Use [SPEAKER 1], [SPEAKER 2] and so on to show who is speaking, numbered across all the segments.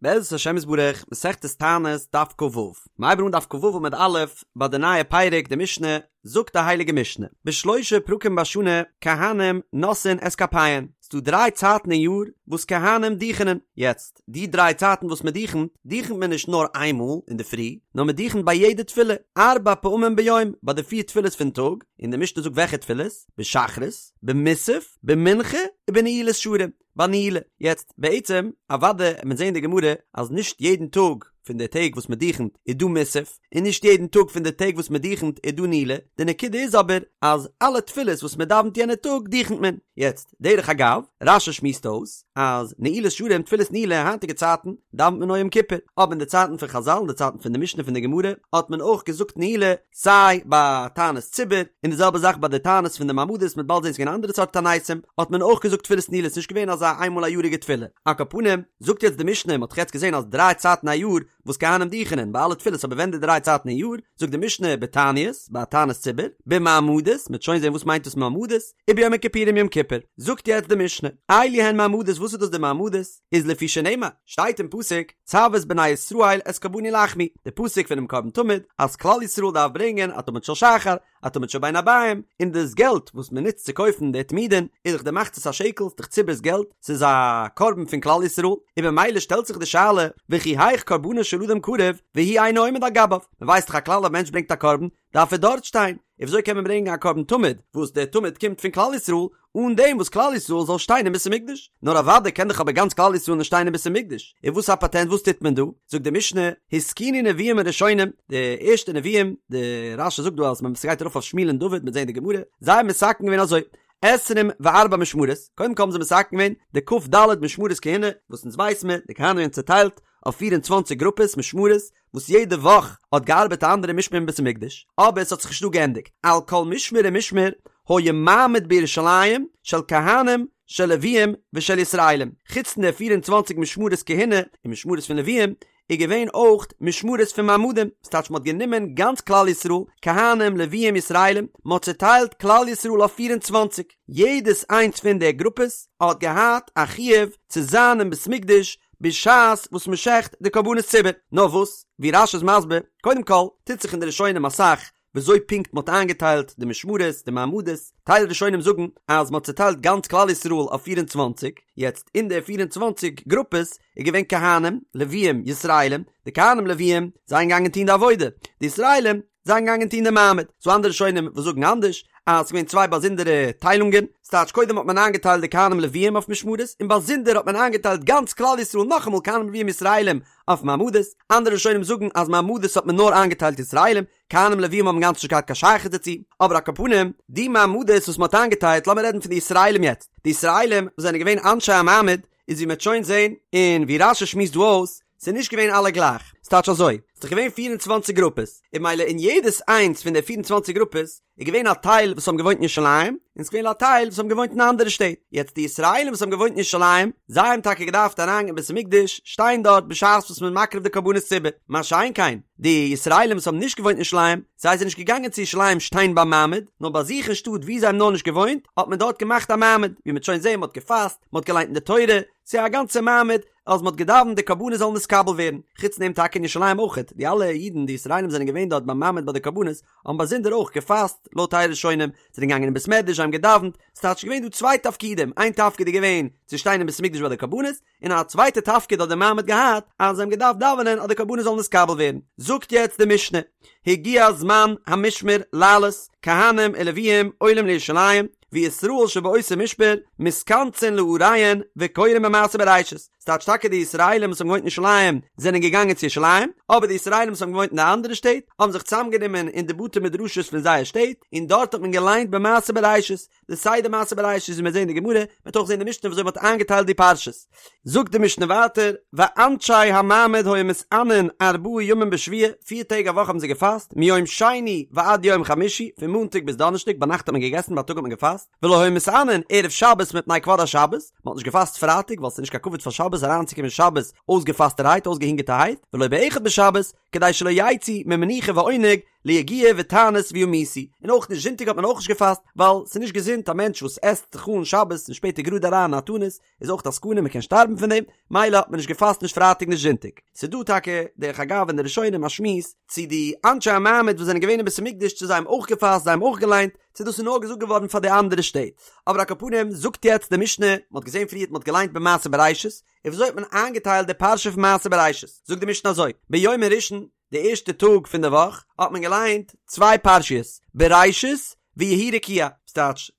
[SPEAKER 1] בעזרת השם יתברך, מסכת תענית, דף כ"ו. מ'הייבן אן דף כ"ו עמוד א', ביי די נייע פרק, די משנה, זאגט די הייליגע משנה, בשלושה פרקים בשנה, כהנים נושאין את כפיהן, ס'דא דריי צייטן אין יאר וואס כהנים דוכענען, יעצט, די דריי צייטן וואס מ'דוכנט, דוכנט מען נישט נאר איין מאל אינדערפרי, נאר מ'דוכנט ביי יעדע תפילה, ארבע פעמים ביום, ביי די פיר תפילות פון טאג, און די משנה זאגט וועלכע תפילות, בשחרית, במוסף, במנחה, ובנעילת שערים. ביי נעילה. יעצט, בעצם, אוודאי וועט מען זעהן אין די גמרא אז נישט יעדן טאג פון די טעג וואס מען דוכנט איז דא מוסף, און נישט יעדן טאג פון די טעג וואס מען דוכנט איז דא נעילה, די נקודה איז אבער אז אלע תפילות וואס מען דאווענט יענע טאג דוכנט מען. יעצט, דרך אגב, רש"י שמועסט אויס אז נעילת שערים תפילת נעילה היינטיגע צייטן דאווענט מען נאר יום כיפור, אבער אין די צייטן פון חז"ל אין די צייטן פון די משנה פון די גמרא האט מען אויך געזאגט נעילה סיי ביי תענית ציבור, און די זעלבע זאך ביי די תענית פון די מעמדות, מ'וועט באלד זען ס'איז געווען אנדערע סארט תעניתים, האט מען אויך געזאגט תפילת נעילה, ס'נישט געווען אזא איינמאל א יאריגע תפילה. על כל פנים, זאגט יעצט די משנה, מ'האט דאך יעצט געזען אז דריי צייטן א יאר וואס כהנים דוכענען ביי אלע תפילות אבער ווען די דריי צייטן אין יאר, זאגט די משנה בתעניות, ביי א תענית ציבור, במעמדות, מ'וועט שוין זען וואס מיינט דאס מעמדות, וביום הכיפורים יום כיפור. זאגט יעצט די משנה, אלו הן מעמדות וואס איז דאס די מעמדות? איז לפי שנאמר, שטייט אין פסוק, צו את בני ישראל את קרבני לחמי, די פסוק פונעם קרבן תמיד, אז כלל ישראל דארף ברענגען א תמיד של שחר, א תמיד של בין הערביים, און דאס געלט וואס מען נוצט צו קויפן די תמידין, איז דאך די מחצית השקל, ס'איז דאך ציבור'ס געלט, ס'איז א קרבן פון כלל ישראל, און במילא שטעלט זיך די שאלה, וכי היאך קרבנו של אדם קרב, והוא אינו עומד על גביו, מען ווייסט דאך א כלל א מענטש ברענגט א קרבן, דארף ער דארט שטיין, און וויאזוי קען מען ברענגען א קרבן תמיד, וואס דער תמיד קומט פון כלל ישראל, אן דעם וואס כלל ישראל זאל שטיין אין בית המקדש? נאר אוודאי קען דאך אבער גאנץ כלל ישראל נישט שטיין אין בית המקדש, און וואס א פאטענט וואס טוט מען דא? זאגט די משנה, התקינו נביאים הראשונים, די ערשטע נביאים, די רש"י זאגט דא אז מען ס'גייט ארויף אויף שמואל און דוד, מ'וועט זען אין די גמרא, זיי האבן מתקן געווען אזוי, עשרים וארבע משמרות, קודם כל האבן זיי מתקן געווען די כ"ד משמרות כהונה, וואס אונז ווייס מיר, די כהנים זענען צוטיילט אויף 24 גרופעס משמרות, וואס יעדע וואך האט געארבעט א אנדערע משמר אין בית המקדש, אבער עס האט זיך נישט דא געענדיגט, על כל משמר ומשמר היה מעמד בירושלים של כהנים של לוויים ושל ישראלים, חוץ פון די 24 משמרות כהונה און משמרות פון לוויים, איז געווען אויך משמרות פון מעמדים, ס'טייטש מ'האט גענומען גאנץ כלל ישראל, כהנים, לוויים, ישראלים, מ'האט צוטיילט כלל ישראל אויף 24, יעדעס איינס פון די גרופעס האט געהאט א חיוב צו זיין אין בית מקדש בשעת וואס מען שעכט די קרבנות ציבור. נאר וואס, ווי רש"י איז מסביר, קודם כל, טוט זיך אין די ראשונים אסאך וויאזוי פונקט מען האט איינגעטיילט די משמרות, די מעמדות, טייל ראשונים זאגן אז מען האט צוטיילט גאנץ כלל ישראל אויף 24, יעצט אין די 24 גרופעס איז געווען כהנים, לוויים, ישראלים, די כהנים לוויים זענען געגאנגען טון די עבודה, די ישראלים זענען געגאנגען טון די מעמד, ס'דא אנדערע ראשונים וואס זאגן אנדערש, אז ס'געווען צוויי באזונדערע טיילונגען, ס'טייטש קודם האט מען איינגעטיילט די כהנים לוויים אויף משמרות, און באזונדער האט מען איינגעטיילט גאנץ כלל ישראל נאכאמאל כהנים לוויים ישראלים אויף מעמדות, אנדערע ראשונים זאגן אז מעמדות האט מען נאר איינגעטיילט ישראלים, כהנים לוויים האבן גאנץ נישט געהאט קיין שייכות דערצו, אבער על כל פנים, די מעמדות וואס מ'האט איינגעטיילט, לאמיר רעדן פון די ישראלים יעצט, די ישראלים וואס זענען געווען אנשי המעמד, איז ווי מ'וועט שוין זען, און ווי רש"י שמועסט דא אויס, ס'איז נישט געווען אלע גלייך, ס'טייטש אזוי, ס'איז דאך געווען 24 גרופעס, און ממילא אין יעדעס איינס פון די 24 גרופעס איז געווען א טייל וואס האבן געוואוינט אין ירושלים, און ס'איז געווען א טייל וואס האבן געוואוינט אין אנדערע שטעט. יעצט די ישראלים וואס האבן געוואוינט אין ירושלים, זיי האבן טאקע געדארפט אריינגיין אין בית המקדש, שטיין דארט בשעת וואס מ'איז מקריב די קרבנות ציבור. מה שאין כן, די ישראלים וואס האבן נישט געוואוינט אין ירושלים, זיי זענען נישט געגאנגען צו ירושלים שטיין ביים מעמד, נאר ביי זיך אין שטאט וואו זיי האבן נאר נישט געוואוינט, האט מען דארט געמאכט א מעמד, ווי מ'וועט שוין זען, מ'האט געפאסט, מ'האט געליינט אין די תורה, ס'איז א גאנצע מעמד, אז מ'האט געדאווענט די קרבנות זאלן נתקבל ווערן, חוץ דעם טאקע אין ירושלים אויכעט, די אלע אידן די ישראלים זענען געווען דארט ביים מעמד ביי די קרבנות, האבן באזונדער אויך געפאסט, לויט טייל ראשונים, זענען געגאנגען אין בית מדרש זיי האבן געדאווענט, ס'טייטש געווען דא צוויי תפקידים, איין תפקיד איז געווען צו שטיין אין בית המקדש ביי די קרבנות, און א צווייטע תפקיד האט די מעמד געהאט, אז זיי האבן געדארפט דאווענען אז די קרבנות זאלן נתקבל ווערן. זאגט יעצט די משנה, הגיע זמן המשמר לעלות, כהנים ולוויים עולים לירושלים, וישראל שבאותו משמר מתכנסין לעריהן וקורין במעשה בראשית, ס'טייטש טאקע די ישראלים וואס האבן געוואוינט אין ירושלים זענען געגאנגען צו ירושלים, אבער די ישראלים וואס האבן געוואוינט אין די אנדערע שטעט האבן זיך צוזאמגענומען אין די בתי מדרשות פון זייער שטעט, און דארט האט מען געליינט במעשה בראשית, די סדר מעשה בראשית ווי מיר זעהן אין די גמרא, מ'וועט אויך זעהן אין די משנה ווי אזוי מ'האט איינגעטיילט די פרשות. זאגט די משנה ווייטער, ואנשי המעמד היו מתענין ארבעה ימים בשבוע, פיר טעג א וואך האבן זיי געפאסט, מיום שני ועד יום חמישי, פון מאנטאג ביז דאנערשטאג, ביינאכט האט מען געגעסן, בייטאג האט מען געפאסט, ולא היו מתענין ערב שבת מפני כבוד השבת, מען האט נישט געפאסט פרייטאג ווייל ס'איז נישט קיין כבוד פאר שבת אריינצוקומען שבת אויסגעפאסטערהייט, אויסגעהונגערטערהייט, ולא באחד בשבת, כדי שלא יצאו ממנוחה ועונג ליגיעה ותענית וימותו, און אויך נישט זונטאג האט מען אויך נישט געפאסט, ווייל ס'איז נישט געזונט א מענטש וואס עסט זיך אן שבת און שפעטער גראד אריין אין א תענית, איז אויך א סכנה מען קען שטארבן פון דעם, מילא האט מען נישט געפאסט נישט פרייטאג נישט זונטאג. ס'איז דא טאקע דרך אגב אין די ראשונים א שמועס צו די אנשי המעמד וואס זענען געווען אין בית המקדש צו זיי האבן אויך געפאסט זיי האבן אויך געליינט, צו דאס איז נאר געזאגט געווארן פאר די אנדערע שטעט. אבער על כל פנים זאגט יעצט די משנה, מען האט געזען פריערט מען האט געליינט במעשה בראשית, און וויאזוי האט מען איינגעטיילט די פרשה פון מעשה בראשית, זאגט די משנה אזוי, ביום הראשון, די ערשטע טאג פון די וואך האט מען געליינט צוויי פרשיות, בראשית ויהי רקיע, ס'טייטש,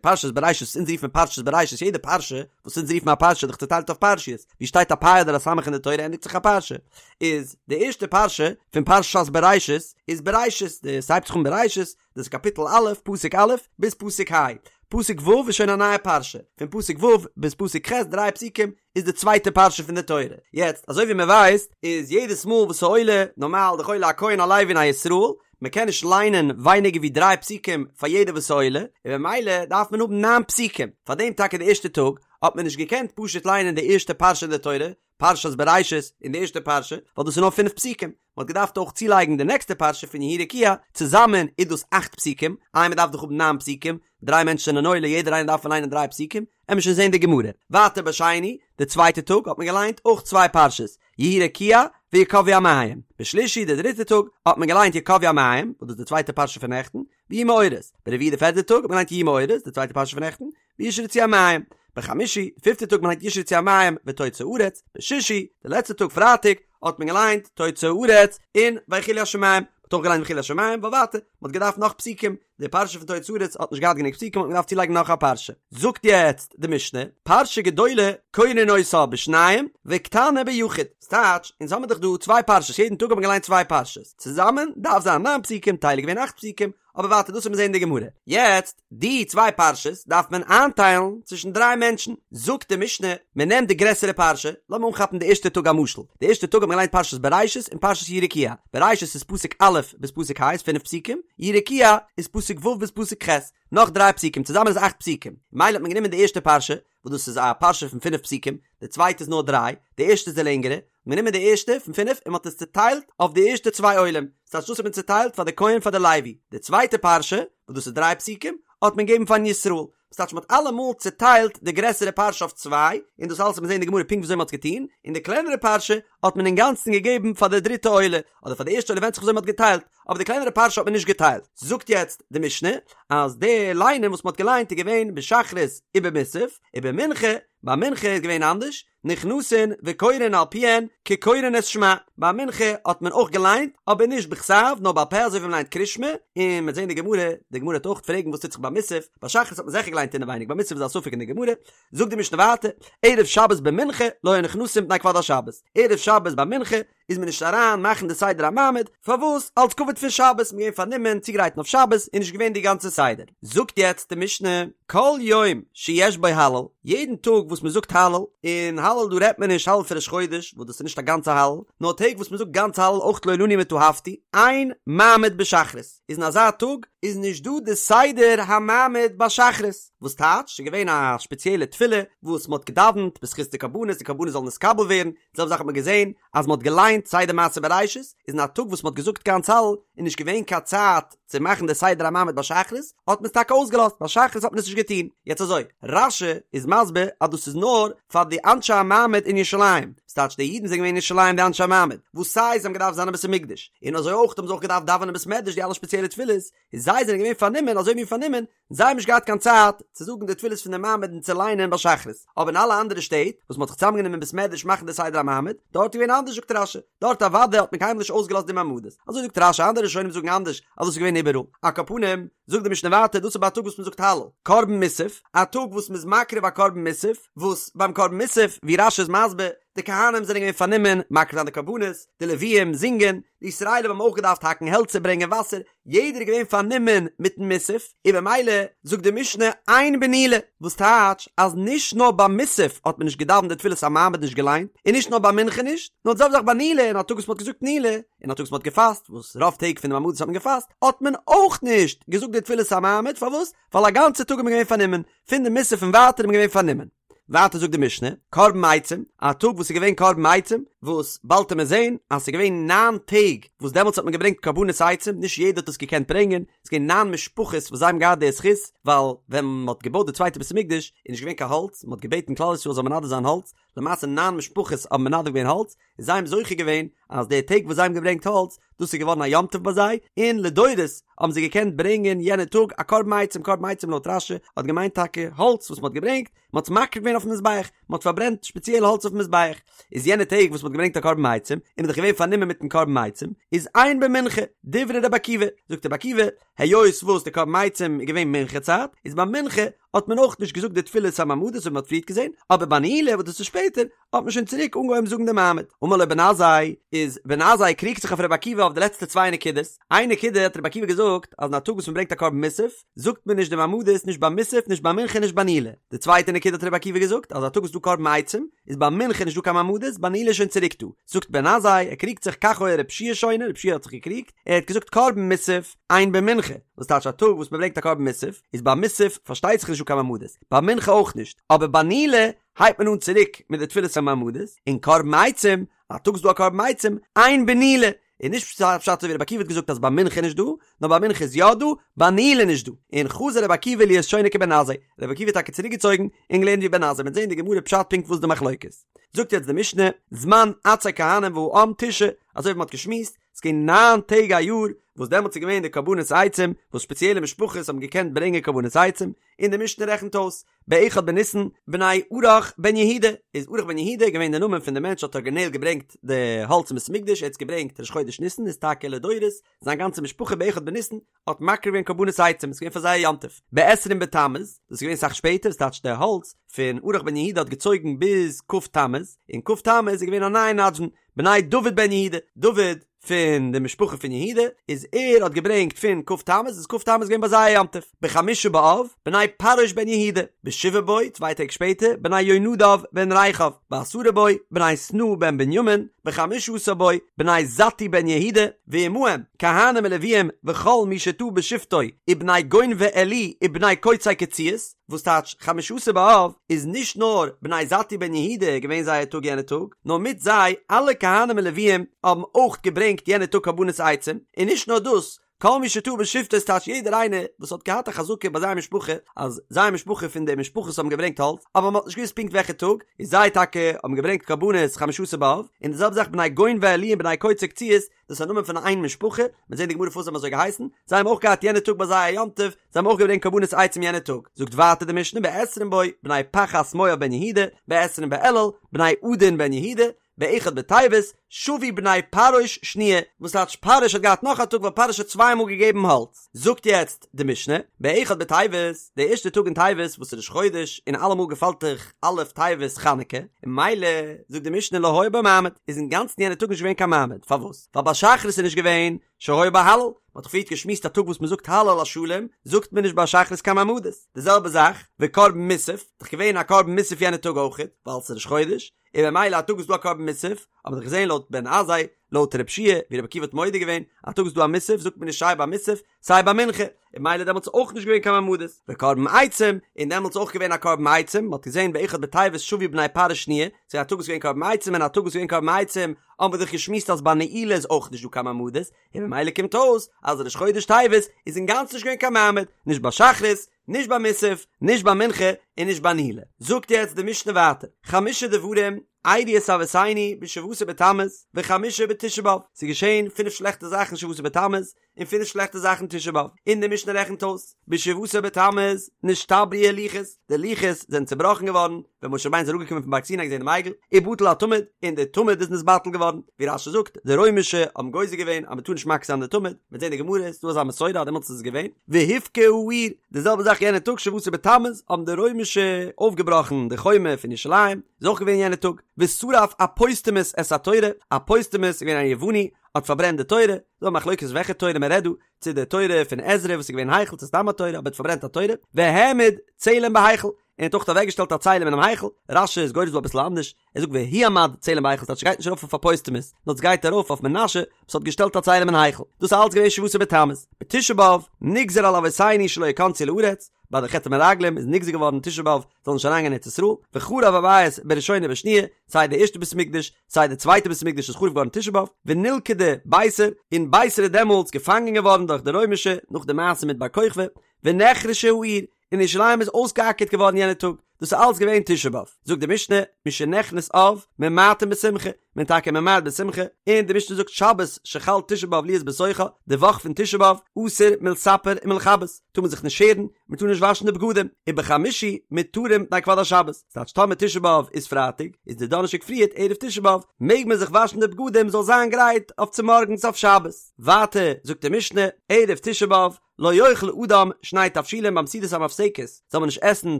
[SPEAKER 1] פרשת בראשית וואס אונז רופן פרשת בראשית, יעדע פרשה וואס אונז רופן א פרשה איז דאך צוטיילט אויף פרשיות, ווי שטייט א פ' אדער א ס' אין די תורה ענדיגט זיך א פרשה, איז די ערשטע פרשה פון פרשת בראשית איז בראשית, די ס'הייבט זיך אן בראשית, דאס איז קאפיטל א', פסוק א', ביז פסוק ה', פסוק ו' איז שוין א נייע פרשה, פון פסוק ו' ביז פסוק ח', דריי פסוקים, איז די צווייטע פרשה פון די תורה. יעצט, אזוי ווי מען ווייסט, איז יעדעס מאל וואס ס'עולה, נארמאל דאך עולה א כהן א לוי און א ישראל, מען קען נישט ליינען ווייניגער ווי דריי פסוקים פאר יעדער וואס ס'עולה, און במילא דארף מען האבן ניין פסוקים. פאר דעם טאקע די ערשטע טאג האט מען נישט געקענט פשוט ליינען די ערשטע פרשה אין די תורה, פרשת בראשית אין די ערשטע פרשה, ווייל דאס איז נאר פינף פסוקים, מען האט געדארפט אויך צולייגן די נעקסטע פרשה פון יהי רקיע, צוזאמען איז דאס אכט פסוקים, איי מען דארף דאך האבן ניין פסוקים, דריי מענטשן זענען עולה יעדער איינער דארף ליינען דריי פסוקים, עמיר שוין זען די גמרא. ווייטער בשני, די צווייטע טאג האט מען געליינט אויך צוויי פרשות, יהי רקיע ויקוו המים, בשלישי די דריטע טאג האט מען געליינט יקוו המים, וואס דאס איז די צווייטע פרשה פון נעכטן, ויהי מאורות, ברביעי די פערטע טאג האט מען געליינט יהי מאורות, די צווייטע פרשה פון נעכטן, וישרצו המים, בחמישי, די פיפטע טאג מען ליינט ישרצו המים ותוצא הארץ, בשישי, די לעצטע טאג פרייטאג, האט מען געליינט תוצא הארץ און ויכלו השמים, מען האט אויך געליינט ויכלו השמים, ווייל ווייטער, מען האט געדארפט נאך פסוקים, די פרשה פון תוצא הארץ האט נישט געהאט גענוג פסוקים האט מען געדארפט צולייגן נאך א פרשה. זאגט יעצט די משנה, פרשה גדולה קורין אותה בשניים וקטנה ביחיד, ס'טייטש, אונז האמיר דאך דא צוויי פרשות, יעדן טאג האט מען געליינט צוויי פרשות, צוזאמען דארף זיין ניין פסוקים, טייל איז געווען אכט פסוקים, אבער ווייטער דאס וועט מען זעהן אין די גמרא. יעצט, די צוויי פרשות דארף מען איינטיילן צווישן דריי מענטשן. זאגט די משנה, מען נעמט די גרעסערע פרשה, לאמיר אנכאפן די ערשטע טאג א משל, די ערשטע טאג האט מען געליינט פרשת בראשית און פרשת יהי רקיע, בראשית איז פסוק א' ביז פסוק ה' איז פינף פסוקים, יהי רקיע איז פסוק ו' ביז פסוק ח', נאך דריי פסוקים, צוזאמען איז אכט פסוקים. מילא האט מען גענומען די ערשטע פרשה, וואס דאס איז א פרשה פון פינף פסוקים, די צווייטע איז נאר דריי, די ערשטע איז די לענגערע, מען נעמען די ערשטע פון פינף און מען האט עס צוטיילט אויף די ערשטע צוויי עולים, ס'טייטש דאס האט מען צוטיילט פאר די כהן פאר די לוי, די צווייטע פרשה וואס דאס איז דריי פסוקים האט מען געגעבן פארן ישראל, ס'טייטש מען האט אלעמאל צוטיילט די גרעסערע פרשה אויף צוויי, און דאס אלעס וועט מען זען אין די גמרא פונקט וויאזוי מען האט עס געטון, און די קלענערע פרשה האט מען אינגאנצן געגעבן פאר די דריטע עולה, אדער פאר די ערשטע עולה ווענדט זיך וויאזוי מען האט געטיילט, אבער די קלענערע פרשה האט מען נישט געטיילט. זאגט יעצט די משנה אז די ליינען וואס מען האט געליינט איז געווען בשחרית ובמוסף, ובמנחה, ביי מנחה איז געווען אנדערש, נכנסין וקורין על פיהן כקורין את שמע, ביי מנחה האט מען אויך געליינט אבער נישט בכתב נאר בעל פה אזוי ווי מען ליינט קרישמע, און מ'וועט זען די גמרא, די גמרא וועט אויך פרעגן וואס טוט זיך ביי מוסף, ביי שחרית האט מען זיכער געליינט אינעווייניג ביי מוסף איז א ספק אין די גמרא, זאגט די משנה ווייטער, ערב שבת במנחה לא היו נכנסין מפני כבוד השבת, ערב שבת ביי מנחה איז מען נישט אריין מאכן די סדר המעמד, פארוואס? אלס כבוד פון שבת, מ'איז געווען פארנומען צוגרייטן אויף שבת, איז נישט געווען די גאנצע סדר. זאגט יעצט די משנה, כל יום שיש בו הלל, יעדן טאג וואס מ'זאגט הלל, און הלל דא רעדט מען נישט הלל פון ראש חודש, וואס דאס איז נישט א גאנצע הלל, נאר טעג וואס מ'זאגט גאנץ הלל אויך לא לנו מיט אהבתי, אין מעמד בשחרית, איז אין אזא טאג איז נישט דא די סדר המעמד ביי שחרית, וואס טייטש, ס'איז געווען א שפעציעלע תפילה וואס מ'האט געדאווענט בזכות די קרבנות, די קרבנות זאלן נתקבל ווערן, די זעלבע זאך האט מען געזען אז מען האט געליינט סדר מעשה בראשית, איז אין א טאג וואס מען האט געזאגט גאנץ הלל איז נישט געווען קיין צייט צו מאכן די סדר המעמד ביי שחרית, האט מען עס טאקע אויסגעלאזט, ביי שחרית האט מען עס נישט געטון. יעצט אזוי, רש"י איז מסביר אז דאס איז נאר פאר די אנשי המעמד אין ירושלים, ס'טייטש די אידן זענען געווען אין ירושלים די אנשי המעמד, וואס סיי זיי האבן געדארפט זיין אין בית המקדש, און אזוי אויך האבן זיי אויך געדארפט דאווענען אין בית מדרש די אלע שפעציעלע תפילות, און זיי זענען געווען פארנומען אזוי מין פארנומען, זיי האבן נישט געהאט קיין צייט צו זאגן די תפילות פון די מעמד און צו ליינען ביי שחרית, אבער אין אלע אנדערע שטעט וואס מען האט זיך צוזאמגענומען אין בית מדרש מאכן די סדר המעמד, דארט איז געווען אנדערש זאגט רש"י, דארט אוודאי האט מען קיינמאל נישט אויסגעלאזט די מעמדות, אזוי זאגט רש"י, אנדערע ראשונים זאגן אנדערש אז דאס איז געווען איבעראל. על כל פנים, זאגט די משנה ווייטער, דאס איז ביי א טאג וואס מען זאגט הלל, קרבן מוסף, א טאג וואס מען איז מקריב א קרבן מוסף, וואס ביים קרבן מוסף, ווי רש"י איז מסביר, די כהנים זענען געווען פארנומען מקריב זיין די קרבנות, די לוויים זינגען, די ישראלים האבן אויך געדארפט האקן העלצער ברענגען וואסער, יעדער איז געווען פארנומען מיטן מוסף, און במילא זאגט די משנה אין בנעילה, וואס טייטש אז נישט נאר ביי מוסף האט מען נישט געדאווענט די תפילת המעמד נישט געליינט, און נישט נאר ביי מנחה נישט, נאר די זעלבע זאך ביי נעילה, אין א טאג וואס מען האט געזאגט נעילה, אין א טאג וואס מען האט געפאסט, וואס רוב טעג פון די מעמדות האט מען געפאסט, האט מען אויך נישט געזאגט די תפילת המעמד, פארוואס? ווייל א גאנצע טאג איז מען געווען פארנומען, פון די מוסף און ווייטער איז מען געווען פארנומען. ווייטער זאגט די משנה, קרבן עצים, א טאג וואס איז געווען קרבן עצים, וואס באלד וועט מען זען אז ס'איז געווען ניין טעג וואס דעמאלטס האט מען געברענגט קרבנות עצים, נישט יעדער האט עס געקענט ברענגען, ס'איז געווען ניין משפחות וואס זיי האבן געהאט די זכות, ווייל ווען מען האט געבויט די צווייטע בית המקדש איז נישט געווען קיין האלץ, מען האט געבעטן כלל ישראל זאל מנדב זיין האלץ, למעשה ניין משפחות האבן מנדב געווען האלץ, און זיי האבן זוכה געווען אז די טעג וואס זיי האבן געברענגט האלץ, דאס איז געווארן א יום טוב ביי זיי, און לדורות האבן זיי געקענט ברענגען יענע טאג א קרבן עצים, קרבן עצים לויט רש"י האט געמיינט טאקע האלץ וואס מען האט געברענגט, מען האט עס מקריב געווען אויפן מזבח, מען האט פארברענט שפעציעל האלץ אויפן מזבח, איז יענע טעג וואס מען האט געברענגט א קרבן עצים, איז מען דאך געווען פארנומען מיטן קרבן עצים, איז אין במנחה, דברי רבי עקיבא, זאגט רבי עקיבא, היות וואס די קרבן עצים איז געווען מנחה צייט, איז ביי מנחה האט מען אויך נישט געזאגט די תפילת המעמדות ווי מען האט פריערט געזען, אבער ביי נעילה וואס דאס איז שפעטער, האט מען שוין צוריק אנגעהויבן זאגן די מעמד. אמר לו בן עזאי, איז בן עזאי קריגט זיך אויף רבי עקיבא אויף די לעצטע צוויי נקודות, איין נקודה האט רבי עקיבא געזאגט אז אין א טאג וואס מען ברענגט א קרבן מוסף, זאגט מען נישט די מעמדות נישט ביי מוסף נישט ביי מנחה נישט ביי נעילה. די צווייטע נקודה האט רבי עקיבא געזאגט אז א טאג וואס איז דא קרבן עצים, איז ביי מנחה נישט דא קיין מעמדות, ביי נעילה איז שוין צוריק דא. זאגט בן עזאי, ער קריגט זיך כך היה רבי יהושע שונה, רבי יהושע האט זיך געקריגט, ער האט געזאגט קרבן מוסף, אין במנחה, וואס טייטש א טאג וואס מען ברענגט א קרבן מוסף, איז ביי מוסף פארשטייט זיך נישט דא קיין מעמדות, ביי מנחה אויך נישט, אבער ביי נעילה הייבט מען אן צוריק מיט די תפילת המעמדות, און קרבן עצים, א טאג איז דא א קרבן עצים, אין בנעילה, איז נישט פשט אזוי ווי רבי עקיבא האט געזאגט אז ביי מנחה נישט דא, נאר ביי מנחה איז יא דא, ביי נעילה נישט דא, און חזר רבי עקיבא להיות שונה כבן עזאי, רבי עקיבא האט טאקע צוריק געצויגן און געלערנט ווי בן עזאי, מ'וועט זען אין די גמרא פשט פונקט וואס די מחלוקת. זאגט יעצט די משנה, זמן עצי כהנים והעם תשעה, אזוי ווי מ'האט געשמועסט, ס'איז געווען ניין טעג א יאר וואס דעמאלטס איז געווען די קרבנות עצים, וואס ספעציעלע משפחות האבן געקענט ברענגען קרבנות עצים, און די משנה רעכנט אויס, באחד בניסן, בני ארח בן יהודה, איז ארח בן יהודה געווען די נאמען פון די מענטש האט ארגינעל געברענגט די האלץ אין בית המקדש, ער האט עס געברענגט ראש חודש ניסן, איז טאקע לדורות, זיין גאנצע משפחה באחד בניסן האט מקריב געווען קרבנות עצים, עס איז געווען פאר זיי א יום טוב. בעשרים בתמוז, דאס איז געווען אסאך שפעטער, עס טייטש די האלץ פון ארח בן יהודה האט געצויגן ביז כ' תמוז, און כ' תמוז איז געווען א נייע נדבן, בני דוד בן יהודה, דוד פון די משפחה פון יהודה, איז ער האט געברענגט פון כ' תמוז, איז כ' תמוז געווען ביי זיי א יום טוב, בחמשה באב, בני פרעוש בן יהודה, בשבעה בו, צוויי טעג שפעטער, בני יונדב בן רכב, בעשרה בו, בני שנאה בן בנימין, בחמשה עשר בו, בני זתוא בן יהודה, ועמהם, כהנים ולוויים וכל מי שטעה בשבטו, ובני גונבי עלי ובני קוצי קציעות, וואס טייטש חמשה עשר באב איז נישט נאר בני זתוא בן יהודה געווען זייער טאג יענע טאג, נאר מיט זיי אלע כהנים און לוויים האבן אויך געברענגט יענע טאג קרבנות עצים, און נישט נאר דאס, כל מי שטעה בשבטו ס'טייטש יעדער איינער וואס האט געהאט א חזקה ביי זיין משפחה אז זיין משפחה פון די משפחות האבן געברענגט האלץ אבער מען האט נישט געוואוסט פונקט וועלכע טאג, איז זיי טאקע האבן געברענגט קרבנות חמשה עשר באב, און די זעלבע זאך בני גונבי עלי און בני קוצי קציעות, דאס איז א נאמען פון איין משפחה, מ'וועט זען די גמרא פארוואס זיי האבן אזוי געהייסן, זיי האבן אויך געהאט יענע טאג ביי זיי א יום טוב, זיי האבן אויך געברענגט קרבנות עצים יענע טאג. זאגט ווייטער די משנה בעשרים בו, בני פחת מואב בן יהודה, בעשרים באלול, בני עדין בן יהודה, באחד בטבת, שבו בני פרעוש שניה, וואס טייטש פרעוש האט געהאט נאך א טאג ווייל פרעוש האט צוויי מאל געגעבן האלץ. זאגט יעצט די משנה, באחד בטבת, די ערשטע טאג אין טבת וואס איז ראש חודש און אלעמאל געפאלט דאך א' טבת חנוכה, און ממילא זאגט די משנה לא היה בו מעמד, איז אינגאנצן יענע טאג נישט געווען קיין מעמד, פארוואס? ווייל ביי שחרית איז נישט געווען שהיה בו הלל, מען האט דאך פריערט געשמועסט א טאג וואס מען זאגט הלל השלם, זאגט מען נישט ביי שחרית קיין מעמדות, די זעלבע זאך וקרבן מוסף, דאך געווען א קרבן מוסף יענע טאג אויכעט, ווייל ס'איז ראש חודש, און ממילא א טאג וואס איז דא א קרבן מוסף, האט מען דאך געזען לויט בן עזאי, לויט רב שיע, ווי רבי עקיבא האט מודה געווען, א טאג וואס איז דא א מוסף זאגט מען נישט סיי ביי מוסף, סיי ביי מנחה, און ממילא דעמאלטס איז אויך נישט געווען קיין מעמדות, וקרבן עצים, און דעמאלטס איז אויך געווען א קרבן עצים, מען האט געזען באחד בטבת שבו בני פרעוש שניה, ס'איז א טאג וואס איז געווען קרבן עצים און א טאג וואס איז געווען קרבן עצים, האבן מיר דאך געשמועסט אז ביי נעילה איז אויך נישט דא קיין מעמדות, און ממילא קומט אויס אז ראש חודש טבת איז אינגאנצן נישט געווען קיין מעמד, נישט ביי שחרית, נישט ביי מוסף, נישט ביי מנחה, און נישט ביי נעילה. זאגט יעצט די משנה ווייטער, חמשה דברים אירעו את אבותינו בשבעה עשר בתמוז וחמשה בתשעה באב, ס'איז געשען פינף שלעכטע זאכן שבעה עשר בתמוז, און פינף שלעכטע זאכן תשעה באב, און די משנה רעכנט אויס, בשבעה עשר בתמוז נשתברו הלוחות, די לוחות זענען צובראכן געווארן, ווען משה רבינו איז אראפגעקומען פון בארג סיני געזען דעם עגל, ובטל התמיד, און די תמיד איז נתבטל געווארן, ווי רש"י זאגט, די רוימישע האבן גוזר געווען אז מען טאר נישט מקריב זיין די תמיד, מ'וועט זען די גמרא, ס'איז דא אזא מסורה אז דעמאלטס איז עס געווען, והובקעה העיר, די זעלבע זאך יענע טאג שבעה עשר בתמוז האבן די רוימישע אויפגעבראכן די חומה פון ירושלים, איז אויך געווען יענע טאג, ושרף אפוסטמוס את התורה, אפוסטמוס איז געווען א יווני, האט פארברענט די תורה, ס'דא א מחלוקת וועלכע תורה מען רעדט דא, צו די תורה פון עזרא וואס איז געווען אין היכל צו סתם א תורה, אבער האט פארברענט א תורה, והעמיד צלם בהיכל. און האט אויך אוועקגעשטעלט א צלם אינעם היכל, רש"י איז גורס דא אביסל אנדערש, ער זאגט והועמד צלם בהיכל ס'טייטש ס'גייט נישט ארויף אויף אפוסטמוס, נאר ס'גייט ארויף אויף מנשה וואס האט געשטעלט א צלם אין היכל, דאס איז אלץ געווען שבעה עשר בתמוז, בתשעה באב נגזר על אבותינו שלא יכנסו לארץ, ביי די חטא המרגלים איז נגזר געווארן תשעה באב זאל נישט אריינגיין אין ארץ ישראל, וחרב הבית בראשונה ובשניה, סיי די ערשטע בית המקדש סיי די צווייטע בית המקדש איז חרוב געווארן תשעה באב, ונלכדה ביתר, און ביתר איז דעמאלטס געפאנגען געווארן דורך די רוימישע נאך די מעשה מיט בר כוכבא, ונחרשה העיר, און ירושלים איז אויסגעאקערט געווארן יענע טאג, דאס איז אלץ געווען תשעה באב, זאגט די משנה, משנכנס אב, ממעטין בשמחה, מען טאקע ממעט בשמחה, און די משנה זאגט שבת שחל תשעה באב להיות בתוכה, די וואך פון תשעה באב, אסור מלספר ומלכבס, טאר מען זיך נישט שערן, מען טאר נישט וואשן די בגדים, ובחמישי מותרים מפני כבוד השבת, ס'טייטש טאמער תשעה באב איז פרייטאג, איז די דאנערשטאג פריערט ערב תשעה באב, מעג מען זיך וואשן די בגדים זאל זיין גרייט אויף צומארגנס אויף שבת. ווייטער זאגט די משנה, ערב תשעה באב, לא יאכל אדם שני תבשילין ביים סעודת המפסקת זאל מען נישט עסן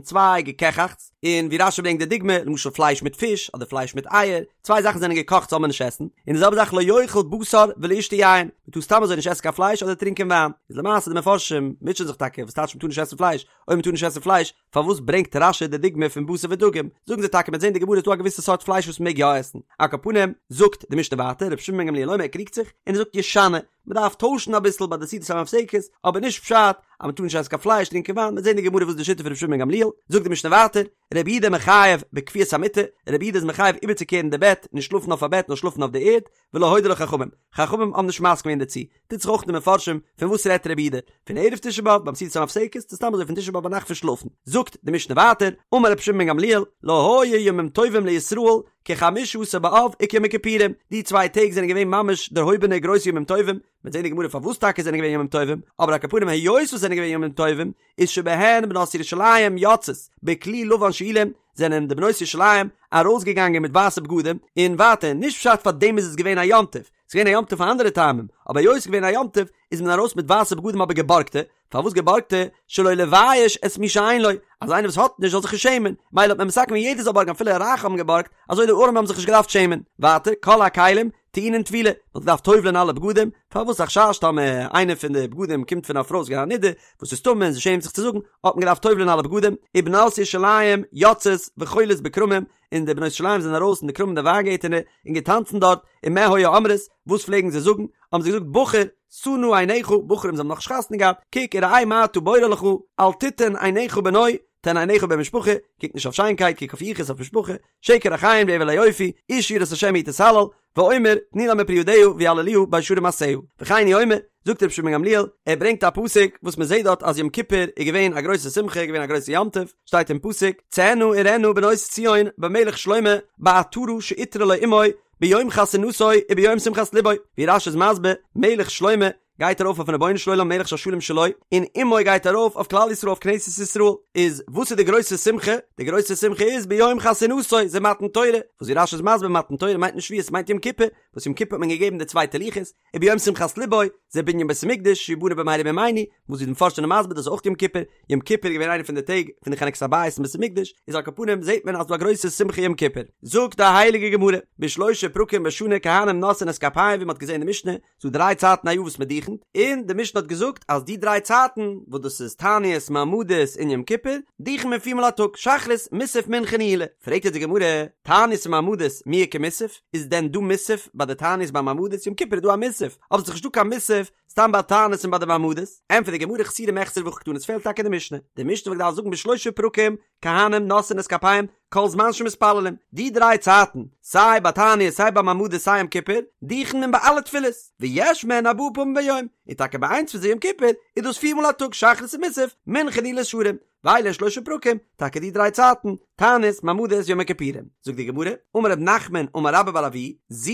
[SPEAKER 1] צוויי געקעכאכטס, און ווי רש"י ברענגט די דוגמא, למשל פלייש מיט פיש, אדער פלייש מיט אייער, צוויי זאכן זענען געקאכט זאל מען נישט עסן, און די זעלבע זאך לא יאכל בשר ולא ישתה יין, מען טאר סתם אזוי נישט עסן קיין פלייש אדער טרינקען וויין, איז למעשה די מפרשים מוטשען זיך טאקע וואס טייטש מען טאר נישט עסן פלייש, אויב מען טאר נישט עסן פלייש, פארוואס ברענגט רש"י די דוגמא פון בשר ודגים? זאגן זיי טאקע מ'עט זען די גמרא איז דא א געוויסע סארט פלייש וואס מ'מעג יא עסן. על כל פנים, זאגט די משנה ווייטער, רבי שמעון בן גמליאל אומר ער קריגט זיך, און ער זאגט ישנה, מ'דארף טוישן אביסל ביי די סעודת המפסקת, אבער נישט פשט אז מ'טאר נישט עסן קיין פלייש, טרינקען וויין, מ'עט זען די גמרא וואס איז די שיטה פון רבי שמעון בן גמליאל, זאגט די משנה ווייטער, רבי יהודה מחייב בכפיית המיטה, רבי יהודה איז מחייב איבערצוקערן די בעט, נישט שלאפן אויף א בעט נאר שלאפן אויף די ערד, ולא הודו לו חכמים, חכמים האבן נישט מסכים געווען דערצו, טוט זיך אויך אין די מפרשים, פון וואס רעדט רבי יהודה? פון ערב תשעה באב ביים סעודת המפסקת, צו סתם אזוי פון תשעה באב ביינאכט פון שלאפן? זאגט די משנה ווייטער, אמר רבי שמעון בן גמליאל, לא היו ימים טובים לישראל כחמשה עשר באב וכיום הכיפורים, די צוויי טעג זענען געווען ממש דערהויבענע גרויסע ימים טובים, מ'וועט זען אין גמרא פארוואס טאקע זענען געווען ימים טובים, אבער על כל פנים היות וואס זענען געווען ימים טובים, איז שבהן בנות ירושלים יוצאות בכלי לבן שאולים, זענען די בנות ירושלים ארויסגעגאנגען מיט ווייסע בגדים, און ווייטער, נישט פשט פאר דעם איז עס געווען א יום טוב, ס'איז געווען א יום טוב פאר אנדערע טעמים, אבער היות ס'איז געווען א יום טוב איז מען ארויס מיט ווייסע בגדים אבער געבארגטע, פארוואס געבארגטע? שלא לבייש את מי שאין לו, אז איינער וואס האט נישט זאל זיך נישט שעמען, מילא האט מען מתקן געווען יעדער זאל בארגן אפילו רייכע האבן געבארגט, אזוי די ארעמע האבן זיך נישט געדארפט שעמען. ווייטער, כל הכלים טעונין טבילה, מען האט געדארפט טובל'ען אלע בגדים, פארוואס א חשש טאמער איינע פון די בגדים קומט פון א פרוי וואס איז געווען א נידה, וואס איז טמא און זי שעמט זיך צו זאגן, האט מען געדארפט טובל'ען אלע בגדים, ובנות ירושלים יוצאות וחולות בכרמים, און די בנות ירושלים זענען ארויס אין די כרמים די וויינגערטענער און געטאנצן דארט, ומה היו אומרות, וואס פלעגן זיי זאגן, האבן זיי געזאגט בחור, שא נא עיניך, בחורים זיי האבן נאך נישט חתונה געהאט, קוק וראה מה אתה בורר לך, אל תתן עיניך בנוי, תן עיניך במשפחה, קוק נישט אויף שיינקייט, קוק אויף יחוס, אויף משפחה, שקר החן והבל היופי, אשה יראת השם היא תתהלל, ואומר, תנו לה מפרי ידיה ויהללוה בשערים מעשיה. וכן הוא אומר, זאגט רבי שמעון בן גמליאל, ער ברענגט א פסוק וואס מען זעט דארט אז יום כיפור איז געווען א גרויסע שמחה, געווען א גרויסע יום טוב, שטייט אין פסוק, צאינה וראינה בנות ציון במלך שלמה בעטרה שעטרה לו אמו ביום חתונתו וביום שמחת לבו, ווי רש"י איז מסביר, מלך שלמה גייט ארויף אויפן רבונו של עולם מלך שהשלום שלו, און אמו גייט ארויף אויף כלל ישראל אויף כנסת ישראל, איז וואס איז די גרויסע שמחה? די גרויסע שמחה איז ביום חתונתו, זה מתן תורה, וואס ווי רש"י איז מסביר מתן תורה מיינט נישט שבועות מיינט יום כיפור, וואס יום כיפור האט מען געגעבן די צווייטע לוחות, וביום שמחת לבו, זה בנין בית המקדש שיבנה במהרה בימינו, וואס ווי די מפרשים זענען מסביר דאס איז אויך יום כיפור, יום כיפור איז געווען איינע פון די טעג פון די חנוכת הבית אין בית המקדש, איז על כל פנים זעט מען אז ס'דא א גרויסע שמחה יום כיפור. זאגט די הייליגע גמרא, בשלושה פרקים בשנה כהנים נושאין את כפיהם ווי מ'האט געזען אין די משנה, ס'דא דריי צייטן א יאר וואס מ'דוכנ'ט, און די משנה האט געזאגט אז די דריי צייטן, וואס דאס איז תענית, מעמדות און יום כיפור, דוכנ'ט מען פיר מאל א טאג, שחרית, מוסף, מנחה, נעילה. פרעגט יעצט די גמרא, תענית ומעמדות, מי איכא מוסף? איז דען דא מוסף ביי די תענית ביי מעמדות? יום כיפור איז דא א מוסף, אבער ס'איז נישטא קיין מוסף סתם ביי תענית און ביי די מעמדות. ענטפערט די גמרא חסורי מחסרא והכי קתני, עס פעלט טאקע אין די משנה. די משנה וואלט געדארפט זאגן בשלושה פרקים, כהנים נושאין את כפיהם, כל זמן שמתפללים. די דריי צייטן, סיי ביי תענית סיי ביי מעמדות סיי יום כיפור, דוכנ'ט מען ביי אלע תפילות, ויש מהן ארבעה פעמים ביום, און טאקע ביי איינס פון זיי יום כיפור, איז דאס פיר מאל א טאג שחרית און מוסף, מנחה נעילת שערים. ואלו הן שלושה פרקים, טאקע די דריי צייטן, תענית, מעמדות, יום הכיפורים. זאגט די גמרא, אמר רב נחמן אמר רבה בר אבוה, זו,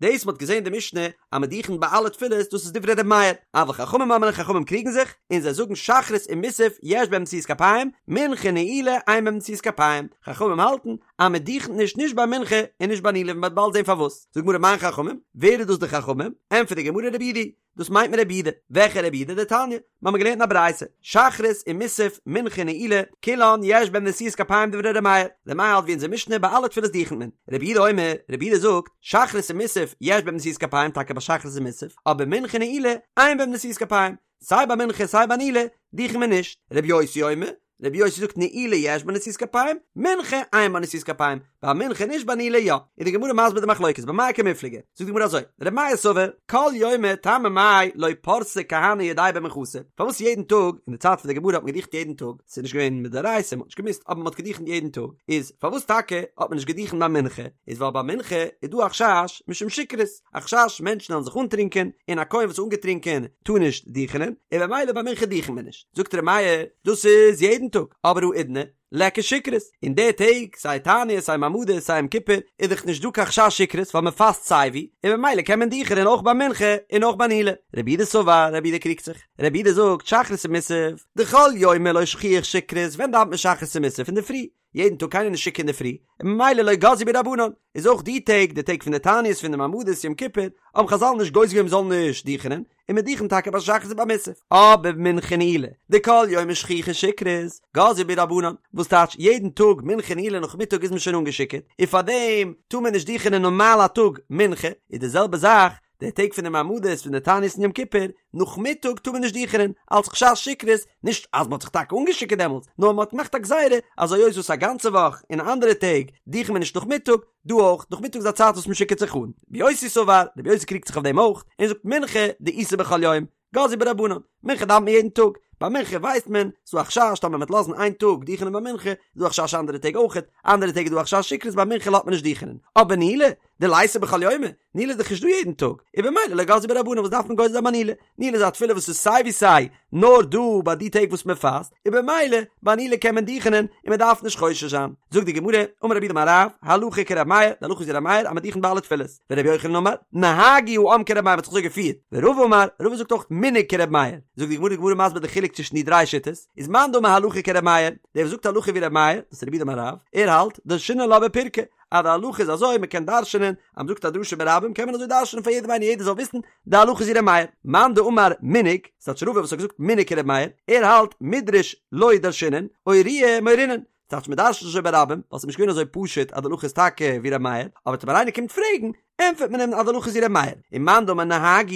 [SPEAKER 1] דאס מ'האט געזען די משנה אז מ'דוכנ'ט ביי אלע תפילות דאס איז דברי ר' מאיר, אבל חכמים אומרים חכמים קריגן זיך, און זיי זאגן שחרית און מוסף יש בהם נשיאת כפיים, מנחה נעילה אין בהם נשיאת כפיים, חכמים האלטן אז מ'דוכנ'ט נישט נישט ביי מנחה און נישט ביי נעילה ווי מ'וועט באלד זען פארוואס. זאגט גמרא מאן חכמים, ווער איז דאס די חכמים? ענטפערט די גמרא רבי יהודה, דאס מיינט מען רבי יהודה, וועלכע רבי יהודה? דתניא, מיר האבן געלערנט אין א ברייתא, שחרית און מוסף, מנחה נעילה, כולן יש בהן נשיאת כפיים דברי ר' מאיר, ר' מאיר האלט ווי אונזער משנה ביי אלע תפילות דוכנ'ט מען, רבי יהודה אומר, רבי יהודה זאגט, שחרית און מוסף יש בהן נשיאת כפיים טאקע ביי שחרית און מוסף, אבער מנחה נעילה אין בהן נשיאת כפיים, סיי ביי מנחה סיי ביי נעילה דוכנ'ט מען נישט, רבי יוסי אומר, רבי יוסי זאגט נעילה יש בה נשיאת כפיים, מנחה אין בה נשיאת כפיים, ביי מנחה נישט ביי נעילה יא. איז די גמרא מסביר די מחלוקת, במאי קמיפלגי? זאגט די גמרא אזוי, רבי מאיר סבר, כל יומא טעמא מאי לא פרסי כהני ידייהו במנחתא, פארוואס יעדן טאג, אין די צייט פון די גמרא האט מען געדיכנט יעדן טאג, ס'איז נישט געווען מדאורייתא, מ'האט נישט געמוזט, אבער מ'האט געדיכנט יעדן טאג, איז פארוואס טאקע האט מען נישט געדיכנט ביי מנחה, איז ווייל ביי מנחה איז דא א חשש משום שכרות, א חשש מענטשן וועלן זיך אנטרינקען, און א כהן וואס איז אנגעטרינקען טאר נישט דיכענען, און במילא ביי מנחה דיכנט מען נישט. זאגט ר' מאיר, דאס איז יעדן טאג, אבער האידנא, ליכא שכרות, אין די טעג, סיי תענית, סיי מעמדות, סיי יום כיפור, איז דאך נישט דא קיין חשש שכרות ווייל מען פאסט סייווי, און במילא קען מען דיכענען אויך ביי מנחה און אויך ביי נעילה. רבי יהודה סבר, רבי יהודה קריגט זיך, רבי יהודה זאגט שחרית ומוסף, דכל יומא לא שכיח שכרות, ווען דאווענט מען שחרית און מוסף? אינדערפרי, יעדן טאג קיינער נישט שיכור אינדערפרי, און ממילא לא גזרו בהו רבנן, איז אויך די טעג, די טעג פון די תעניות פון די מעמדות יום כיפור, האבן חזל נישט גוזר געווען מ'זאל נישט דיכענען, און מען דיכנט טאקע ביי שחרית און ביי מוסף. אבער מנחה ונעילה, דכל יומא שכיחא שכרות, גזרו בהו רבנן, וואס טייטש יעדן טאג מנחה נעילה נאכמיטאג איז מען שוין אנגעשיכורט, און פארדעם טאר מען נישט דיכענען נארמאל א טאג מנחה, איז די זעלבע זאך די טעג פון די מעמדות פון די תענית און יום כיפור, נאכמיטאג טאר מען נישט דיכענען, אלס חשש שכרות, נישט אז מען האט זיך טאקע אנגעשיכורט דעמאלטס, נאר מען האט געמאכט א גזירה אז היות וואס א גאנצע וואך און אנדערע טעג דיכנט מען נישט נאכמיטאג, דא אויך, נאכמיטאג איז א צייט וואס מען שיכורט זיך אן. רבי יוסי סבר, רבי יוסי קריגט זיך אויף דעם אויך, און זאגט מנחה דאיתא בכל יום, גזרו בה רבנן, מנחה דאווענט מען יעדן טאג, ביי מנחה ווייסט מען, ס'דא א חשש טאמער מ'וועט לאזן איין טאג דיכענען ביי מנחה, איז דא א חשש אנדערע טעג אויכעט, אנדערע טעג איז דא א חשש שכרות ביי מנחה לאזט מען נישט דיכענען, אבער נעילה, דליתא בכל יומא, נעילה איז דאך נישט דא יעדן טאג, און במילא לא גזרו בה רבנן וואס דארף מען גוזר זיין ביי נעילה, נעילה איז א תפילה וואס איז סיי ווי סיי נאר דא ביי די טעג וואס מען פאסט, און במילא ביי נעילה קען מען דיכענען און מען דארף נישט חושש זיין. זאגט די גמרא, אמר רב יהודה אמר רב, הלכה כר' מאיר, די הלכה איז ווי ר' מאיר אז מען דיכנט ביי אלע תפילות, ור' יוחנן אמר, נהגו העם כר' מאיר מען האט זיך אזוי געפירט, ורבא אמר, רבא זאגט אויך מנהג כר' מאיר, זאגט די גמרא די גמרא מסביר די חילוק צווישן די דריי שיטות, איז מאן דאמר הלכה כר' מאיר, דער וואס זאגט הלכה ווי ר' מאיר, דאס איז רב יהודה אמר רב, ער האלט, דרשינן לה בפירקא, אז די הלכה איז אזוי, מען קען דרש'נען, אז מען זאגט א דרשה ברבים קען מען אזוי דרש'נען פאר יעדעם איינער יעדער זאל וויסן, די הלכה איז ווי ר' מאיר. מאן דאמר מנהג, ס'טייטש רבא וואס האט געזאגט מנהג כר' מאיר, ער האלט מידרש לא דרשינן, אורויי מורינן, ס'טייטש מען דרש'נט נישט אזוי ברבים, ווייל ס'איז נישט געווען אזוי פשוט אז די הלכה איז טאקע ווי ר' מאיר, אבער טאמער איינער קומט פרעגן, ענטפערט מען אים אז די הלכה איז ווי ר' מאיר. און מאן דאמר נהגו,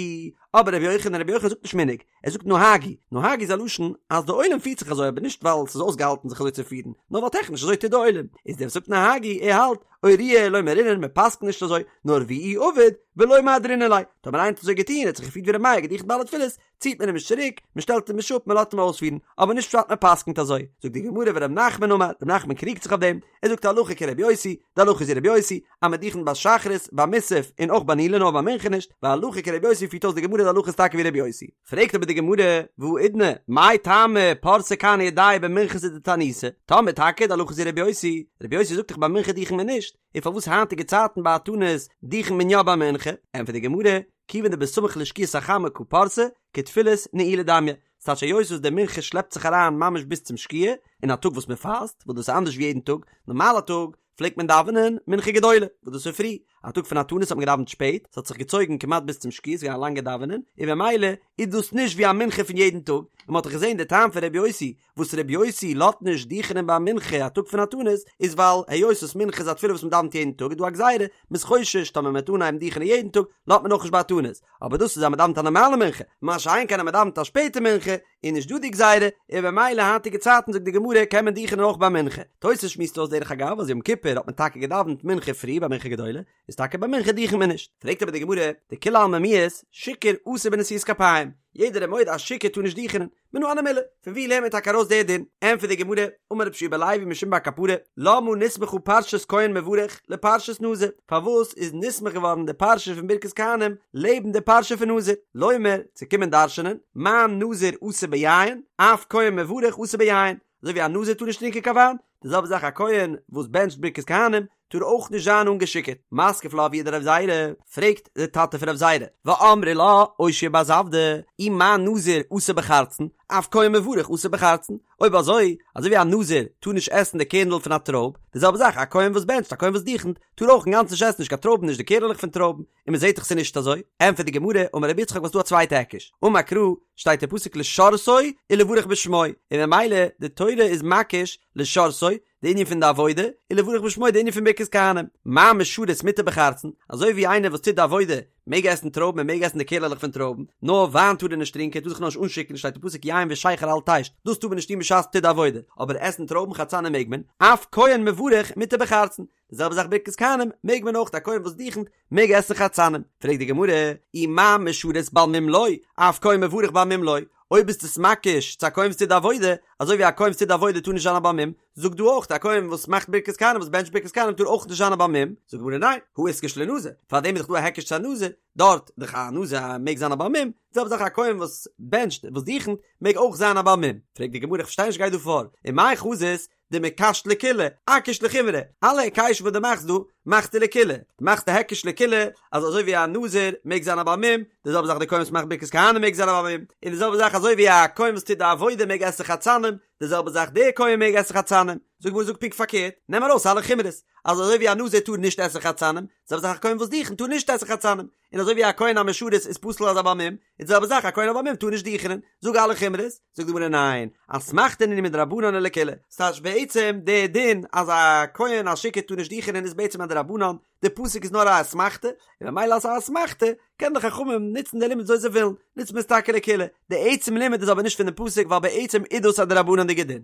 [SPEAKER 1] אבער ר' יוחנן, ר' יוחנן זאגט נישט מנהג, ער זאגט נהגו, נהגו איז א לשון אז די עולם פירט זיך אזוי אבער נישט ווייל ס'איז אויסגעהאלטן זיך אזוי צו פירן, נאר ווייל טעכניש אזוי טוט די עולם, איז דער וואס זאגט נהגו ער האלט אורויי לא מורינן מען פסק'נט נישט אזוי, נאר ואי עביד ולא מהדרינן ליה, טאמער איינער האט אזוי געטון ער האט זיך געפירט ווי ר' מאיר געדיכנט ביי אלע תפילות, ציט מען אים נישט צוריק, מען שטעלט אים נישט אפ מען לאזט אים אויספירן, אבער נישט פשט מען פסק'נט אזוי, זאגט די גמרא ור' נחמן אמר, ר' נחמן קריגט זיך אויף דעם, ער זאגט הלכה כר' יוסי, די הלכה איז ווי ר' יוסי, אז מען דיכנט ביי שחרית, ביי מוסף, און אויך ביי נעילה נאר ביי מנחה נישט, והלכה כר' יוסי פירט אויס די גמרא די הלכה איז טאקע ווי ר' יוסי. פרעגט אבער די גמרא, והאידנא, מאי טעמא פרסי כהני ידייהו במנחתא דתעניתא, טאמער טאקע די הלכה איז ווי ר' יוסי, ר' יוסי זאגט דאך ביי מנחה דיכנט מען נישט, און פארוואס היינטיגע צייטן ביי א תענית דיכנט מען יא ביי מנחה? ענטפערט די גמרא, כיוון דבסמוך לשקיעת החמה קא פרסי, כתפילת נעילה דמיא, ס'טייטש היות וואס די מנחה שלעפט זיך אריין ממש ביז צום שקיעה, אין א טאג וואס מען פאסט, וואס דאס איז אנדערש ווי יעדן טאג, נארמאל א טאג פלעגט מען דאווענען מנחה גדולה, וואס דאס איז פרי, א טאג פון א תענית האט מען געדאווענט שפעט, ס'האט זיך געצויגן כמעט ביז צום שקיעה, ס'איז געווען א לאנגע דאווענען, און במילא איז דאס נישט ווי א מנחה פון יעדן טאג, און מ'האט דאך געזען די טעם פון ר' יוסי, וואס ר' יוסי לאזט נישט דיכענען ביי מנחה א טאג פון א תענית, איז ווייל היות וואס מנחה איז א תפילה וואס מ'דאווענט יעדן טאג איז דא א גזירה, מ'איז חושש טאמער מ'וועט אנהייבן דיכענען יעדן טאג, לאזט מען אויך נישט ביי א תענית, אבער דאס איז אז מ'דאווענט א נארמאלע מנחה, מה שאין כן אז מ'דאווענט א שפעטע מנחה, איז נישט דא די גזירה, און במילא היינטיגע צייטן זאגט די גמרא קען מען דיכענען אויך ביי מנחה. תוס' שמועסט אויס דרך אגב אז יום כיפור האט מען טאקע געדאווענט מנחה פרי ביי מנחה גדולה, איז טאקע ביי מנחה דיכענט מען נישט. פרעגט אבער די גמרא, דכולי עלמא מיהת, שיכור אסור בנשיאת כפיים, יעדער איז מודה אז שיכור טאר נישט דיכענען, מנא הני מילי, פון ווי לערנט מען טאקע ארויס די דין? ענטפערט די גמרא, אמר רבי יהושע בן לוי משום בר קפרא, למה נסמכה פרשת כהן מברך לפרשת נזיר, פארוואס איז נסמך געווארן די פרשה פון ברכת כהנים לעבן די פרשה פון נזיר? לומר, צו קומען דרש'נען, מה נזיר אסור ביין, אף כהן מברך אסור ביין, אזוי ווי א נזיר טאר נישט טרינקען קיין וויין, די זעלבע זאך א כהן וואס בענטשט ברכת כהנים טאר אויך נישט זיין אנגעשיקערט. מתקיף לה אבוה דרב זירא, פרעגט די טאטע פון רב זירא, ואמרי לה אושעיא בר זבדא, אי מה נזיר אסור בחרצן, אף כהן מברך אסור בחרצן, אויב אזוי, אזוי ווי א נזיר טאר נישט עסן די קערנדל פון א טרויב, די זעלבע זאך א כהן וואס בענטשט, א כהן וואס דוכנ'ט, טאר אויך אינגאנצן נישט עסן נישט קיין טרויבן נישט די קערעלעך פון טרויבן, און מען זעט דאך ס'איז נישט אזוי, ענטפערט די גמרא, אמר רבי יצחק וואס דא א צווייטע היקש, אמר קרא, שטייט אין פסוק לשרתו ולברך בשמו, און ממילא די תורה איז מקיש לשרתו, די ענין פון די עבודה, ולברך בשמו די ענין פון ברכת כהנים, מה משרת מותר בחרצן, אזוי ווי איינער וואס טוט די עבודה. מעג עסן טרויבן, ער מעג עסן די קערלעך פון טרויבן, נאר וויין טאר ער נישט טרינקען, ער טאר זיך נאר נישט אנשיכור'ן, שטייט אין פסוק יין ושכר אל תשת, דאס טאר מען נישט טון בשעת מ'טוט די עבודה, אבער עסן טרויבן חרצנים מעג מען, אף כהן מברך מותר בחרצן, די זעלבע זאך ברכת כהנים מעג מען אויך, א כהן וואס דוכנ'ט מעג עסן חרצנים, פרעגט די גמרא, אי מה משרת בעל מום לא, אף כהן מברך בעל מום לא, אויב ביסטו עס מקיש צו א כהן וואס טוט די עבודה, אזוי ווי א כהן וואס טוט די עבודה טאר נישט זיין א בעל מום, זאג דא אויך א כהן וואס מאכט ברכת כהנים וואס בענטשט ברכת כהנים טאר אויך נישט זיין א בעל מום, זאגט די גמרא ניין, הא איתקש לנזיר, פארדעם איז דאך דא א היקש צו א נזיר, דארט דאך א נזיר מעג זיין א בעל מום, די זעלבע זאך א כהן וואס בענטשט וואס דוכנ'ט מעג אויך זיין א בעל מום, פרעגט די גמרא איך פארשטיי נישט גייט דא פאר, ומאי חזית דמקשת לקולא, אקיש לחומרא, אלע היקשים וואס דו מאכסט דא, מאכסטו לקולא, דו מאכסט א היקש לקולא, אז אזוי ווי א נזיר מעג זיין א בעל מום, די זעלבע זאך די כהן וואס מאכט ברכת כהנים מעג זיין א בעל מום, און די זעלבע זאך אזוי ווי א כהן וואס טוט די עבודה מעג עסן חרצנים, די זעלבע זאך דער כהן מעג עסן חרצנים, זאג גמרא זאג פונקט פארקערט, נעם ארויס אלע חומרות, אז אזוי ווי א נזיר טאר נישט עסן חרצנים, די זעלבע זאך א כהן וואס דוכנ'ט טאר נישט עסן חרצנים, און אזוי ווי א כהן המשרת איז פסול אלס א בעל מום, איז די זעלבע זאך א כהן א בעל מום טאר נישט דוכענען, זאג אלע חומרות, זאגט די גמרא ניין, אסמכתא נינהו מדרבנן ולקולא, ס'טייטש בעצם די דין אז א כהן א שיכור טאר נישט דוכענען איז בעצם א דרבנן, די פסוק איז נאר א אסמכתא, און ממילא אז ס'איז א אסמכתא קען די חכמים נוצן די לימוד וויאזוי זיי ווילן, נוצט מען עס טאקע לקולא, די עצם לימוד איז אבער נישט פון די פסוק ווייל בעצם איז דאס א דרבנן'דיגע דין.